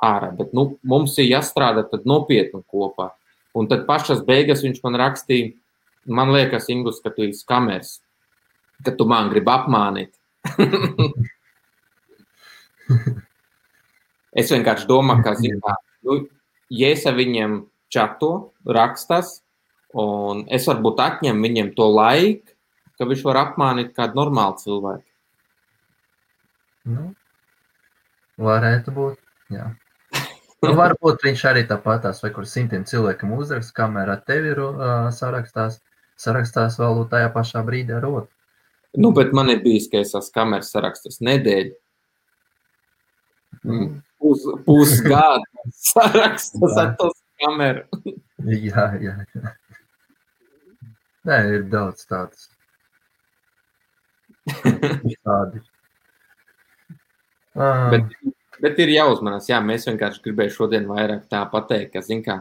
ārā, bet mums ir jāstrādā tad nopietni kopā. Un tad pašas beigas viņš man rakstīja, man liekas, Ingus, ka tu esi kameras, ka tu man gribi apmānīt. Es vienkārši domāju, ka, ja es ar viņiem čato, rakstas, un es varbūt atņemu viņiem to laiku, ka viņš var apmānīt kādu normālu cilvēku. Nu, varētu būt, jā. Nu, varbūt viņš arī tāpatās, vai kur 100 cilvēkam uzrakst, kamēr ar tevi sarakstās vēl tajā pašā brīdī ar otru. Nu, bet man ir bijis, ka es esmu kameras sarakstas nedēļu. Pusgadu sarakstas ar tos kameru. Jā. Nē, ir daudz tādas. Tādi. Bet ir jāuzmanās, jā, mēs vienkārši gribēju šodien vairāk tā pateikt, ka, zin kā,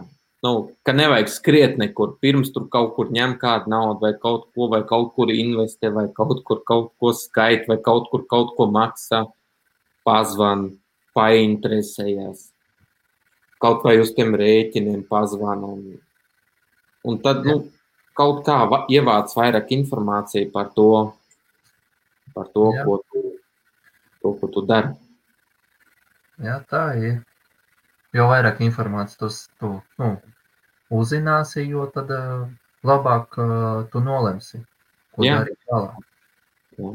ka nevajag skriet nekur, pirms tur kaut kur ņem kādu naudu vai kaut kur investē, vai kaut ko skait, vai kaut ko maksā, pazvan, painteresējās, kaut vai uz tiem rēķiniem pazvan, un tad, kaut kā ievāc vairāk informāciju par to, ko tu dari. Jā, tā ir. Jo vairāk informācijas tu uzzināsi, jo tad labāk tu nolemsi, ko darīt tālāk. Jā.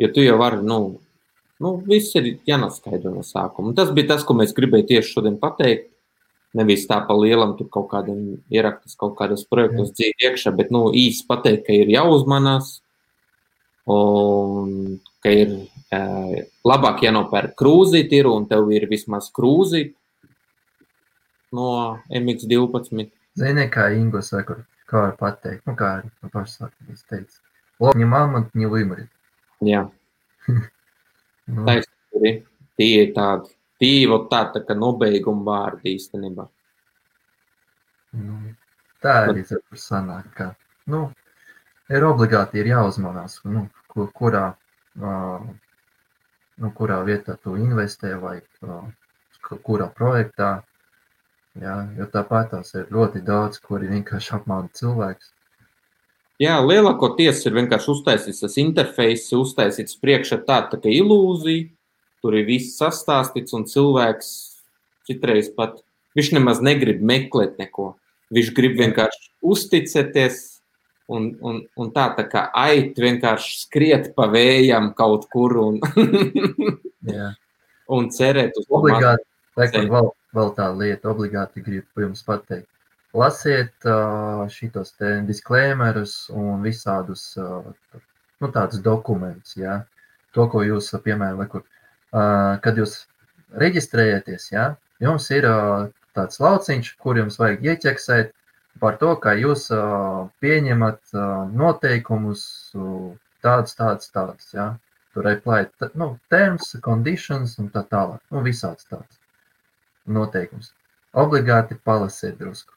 Jo tu jau vari, viss ir jānoskaidro no sākuma. Tas bija tas, ko mēs gribēju tieši šodien pateikt. Nevis tā pa lielam tur kaut kādiem ieraktas kaut kādos projektos dzīvi iekšā, bet īsti pateikt, ka ir jāuzmanās un ka ir labāk jānopērk krūzīti ir un tev ir vismaz krūzīti no MX12. Zini, kā Ingos vai kā var pateikt, kā arī pašsākums teica. Лоб не мамонт, не вымрет. Jā. Taisnība. Tie ir tādi kā nobeiguma vārdi īstenībā. Tā arī sanāk, ka ir obligāti jāuzmanās, kurā vietā tu investē vai kurā projektā. Jā, jo tāpat tās ir ļoti daudz, kuri vienkārši apmāna cilvēks. Jā, lielākoties ir vienkārši uztaisīts tas interfejs, uztaisīts priekšā tā kā ilūzija, tur ir viss sastāstīts un cilvēks citreiz pat, viņš nemaz negrib meklēt neko, viņš grib vienkārši uzticēties un tā kā ait vienkārši skriet pa vējam kaut kur un cerēt uz obligāti, vēl tā lieta, obligāti gribu jums pateikt. Lasiet šitos te disclaimerus un visādus tādus dokumentus, jā. To, ko jūs, piemēram, kad jūs reģistrējaties, jā, jums ir tāds lauciņš, kur jums vajag ieķeksēt par to, kā jūs pieņemat noteikumus tādus, jā. Tur apply, terms, conditions un tā tālāk, visāds tāds noteikums. Obligāti palasiet drusku.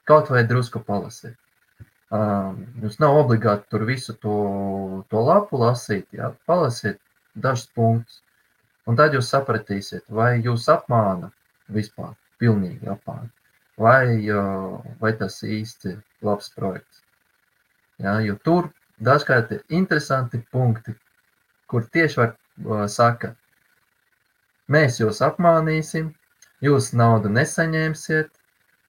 Kaut vai drusku palasiet. Jums nav obligāti tur visu to lapu lasīt, jā, palasiet dažus punktus. Un tad jūs sapratīsiet, vai jūs apmāna vispār, pilnīgi apmāna, vai tas īsti labs projekts. Jā, jo tur dažkārt ir interesanti punkti, kur tieši var saka, mēs jūs apmānīsim, jūs naudu nesaņemsiet,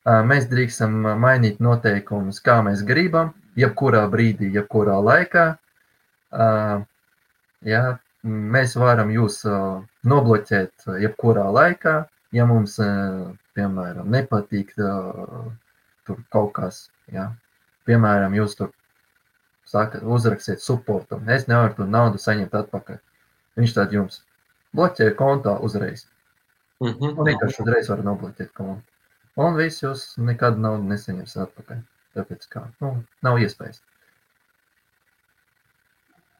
mēs drīkstam mainīt noteikumus, kā mēs gribam, jebkurā brīdī, jebkurā laikā. Jā, mēs varam jūs nobloķēt jebkurā laikā, ja mums, piemēram, nepatīk tur kaut kas. Jā. Piemēram, jūs tur uzrakstiet supportam, es nevaru tur naudu saņemt atpakaļ. Viņš tad jums bloķē kontā uzreiz. Un vienkārši uzreiz var nobloķēt kontu. Un viss jūs nekad naudu nesaņems atpakaļ. Tāpēc kā, nav iespējas.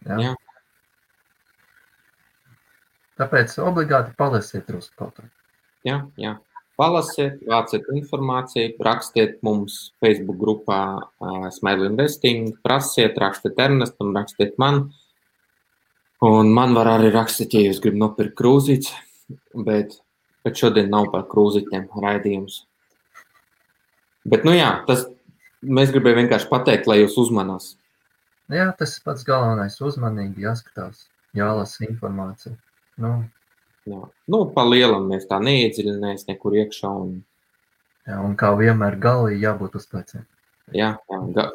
Jā. Tāpēc obligāti palasiet drusku kaut ko. Jā. Palasiet, vāciet informāciju, rakstiet mums Facebook grupā Smile Investing, prasiet, rakstiet Ernestam, rakstiet man. Un man var arī rakstīt, ja jūs gribat nopirkt krūzītes, bet šodien nav par krūzītēm raidījums. Bet, nu jā, mēs gribējām vienkārši pateikt, lai jūs uzmanās. Jā, tas pats galvenais, uzmanīgi jāskatās, jālasa informācija. Jā. Nu, pa lielam mēs tā neiedziļināmies nekur iekšā. Jā, un kā vienmēr galī jābūt uz pleciem. Jā,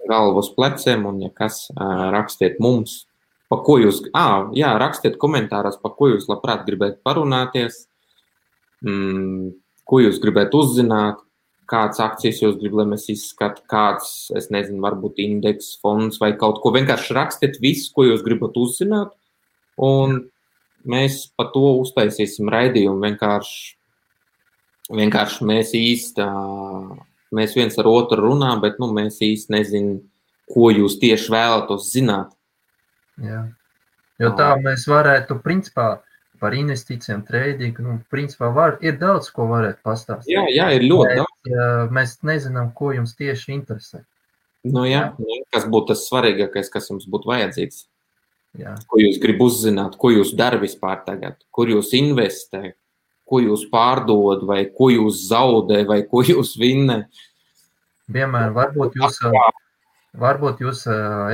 galva uz pleciem, un ja kas, rakstiet mums, pa ko jūs, rakstiet komentāros, pa ko jūs labprāt gribētu parunāties, ko jūs gribētu uzzināt, kādas akcijas jūs gribat, lai mēs izskatu, kāds, es nezinu, varbūt indeks, fonds vai kaut ko. Vienkārši rakstiet visu, ko jūs gribat uzzināt, un mēs pa to uztaisīsim raidījumu. Vienkārši mēs viens ar otru runā, bet mēs īsti nezinām, ko jūs tieši vēlatos zināt. Jā. Jo tā mēs varētu, principā, par investīcijām, tradingu, principā ir daudz, ko varētu pastāstīt. Jā, ir ļoti daudz. Mēs nezinām, ko jums tieši interesē. Kas būtu tas svarīgākais, kas jums būtu vajadzīgs? Jā. Ko jūs gribat uzzināt, ko jūs dara vispār tagad, kur jūs investē, ko jūs pārdod, vai ko jūs zaudē, vai ko jūs vinnē. Vienmēr varbūt jūs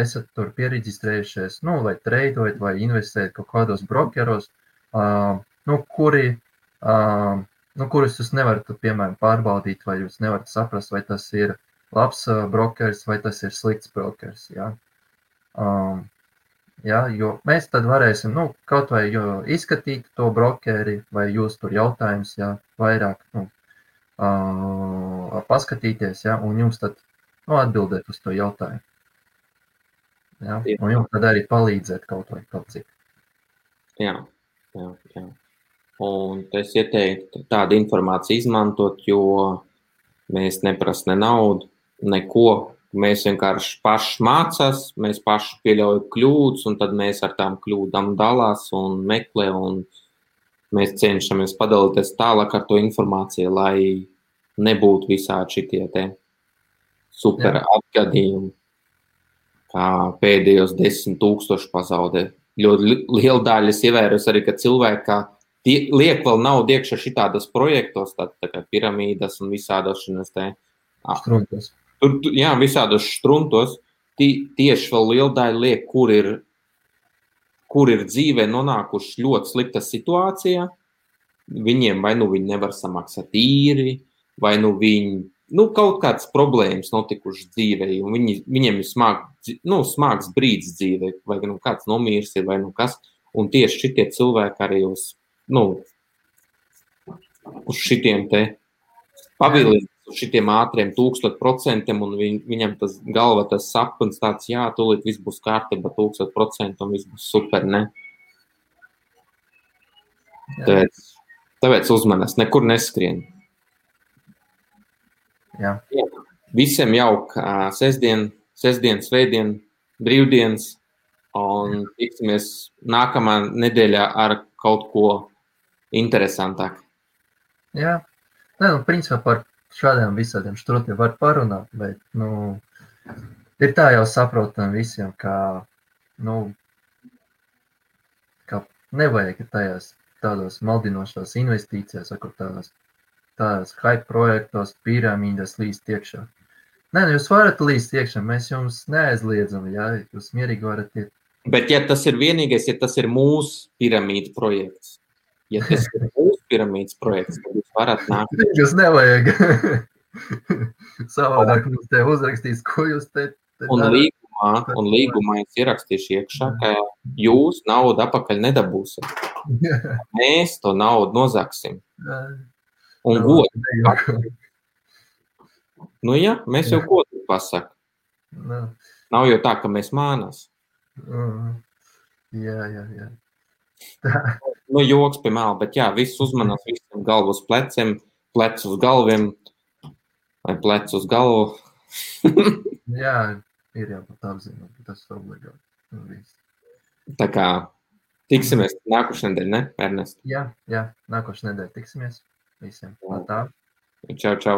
esat tur pieregistrējušies, vai treidojat, vai investējat kaut kādos brokeros, kurus jūs nevarat, piemēram, pārbaudīt, vai jūs nevarat saprast, vai tas ir labs brokers, vai tas ir slikts brokers. Jā. Jo mēs tad varēsim kaut vai izskatīt to brokeri, vai jūs tur jautājums, vairāk paskatīties, un jums tad atbildēt uz to jautājumu. Jā? Un jums tad arī palīdzēt kaut vai kaut cik. Jā. Un es ieteiktu tādu informāciju izmantot, jo mēs neprasa ne naudu, neko. Mēs vienkārši paši mācās, mēs paši pieļaujam kļūdas, un tad mēs ar tām kļūdām dalās un meklē, un mēs cenšamies padalīties tālāk ar to informāciju, lai nebūtu visādi šitie te super atgadījumi, kā pēdējos 10,000 pazaudē. Ļoti liela daļa es ievēros arī, ka cilvēki liek vēl naudu iekšā šitādos projektos, tā kā piramīdas un visādos šinos te struntos. Jā, visādos štruntos tieši vēl liela daļa liek, kur ir dzīvē nonākuši ļoti slikta situācijā. Viņiem vai viņi nevar samaksāt īri, vai viņi kaut kādas problēmas notikušas dzīvē, un viņiem ir smags brīdis dzīvē, vai kāds nomīrs ir, vai kas. Un tieši šitie cilvēki arī uz šitiem te pavilīgi. Uz šitiem ātriem 1000%, un viņam tas galva, tas sapnis tāds, tūlīt viss būs kārtībā 1000%, un viss būs super, ne? Tāpēc uzmanās, nekur neskrien. Jā. Visiem jauk sestdien, svētdien, brīvdienas, un tiksimies nākamā nedēļā ar kaut ko interesantāk. Jā, principā par šādiem visādiem štrutiem var parunāt, bet, ir tā jau saprotam visiem, ka nevajag tādos maldinošos investīcijās, tādās hype projektos, piramīdas līst iekšā. Jūs varat līst iekšā, mēs jums neaizliedzam, jūs mierīgi varat iet. Bet ja tas ir vienīgais, ja tas ir mūsu piramīda projekts, tad jūs varat nākt. Jūs nevajag. Savādāk mums te uzrakstīs, ko jūs te darat. Un līgumā es ierakstīšu iekšā, ka jūs naudu apakaļ nedabūsiet. Mēs to naudu nozaksim. Un godu. Mēs jau godu pasaka. Nav jau tā, ka mēs mānās. Jā. Joks pie mēla, bet viss uzmanās, visiem galvu uz pleciem, plec uz galviem, vai plec uz galvu. Jā, ir jābūt apzināt, tas ir obligāti. Tā kā tiksimies nākošais nedēļa, ne, Ernest? Jā, nākošais nedēļa tiksimies visiem. Tā. Čau, čau!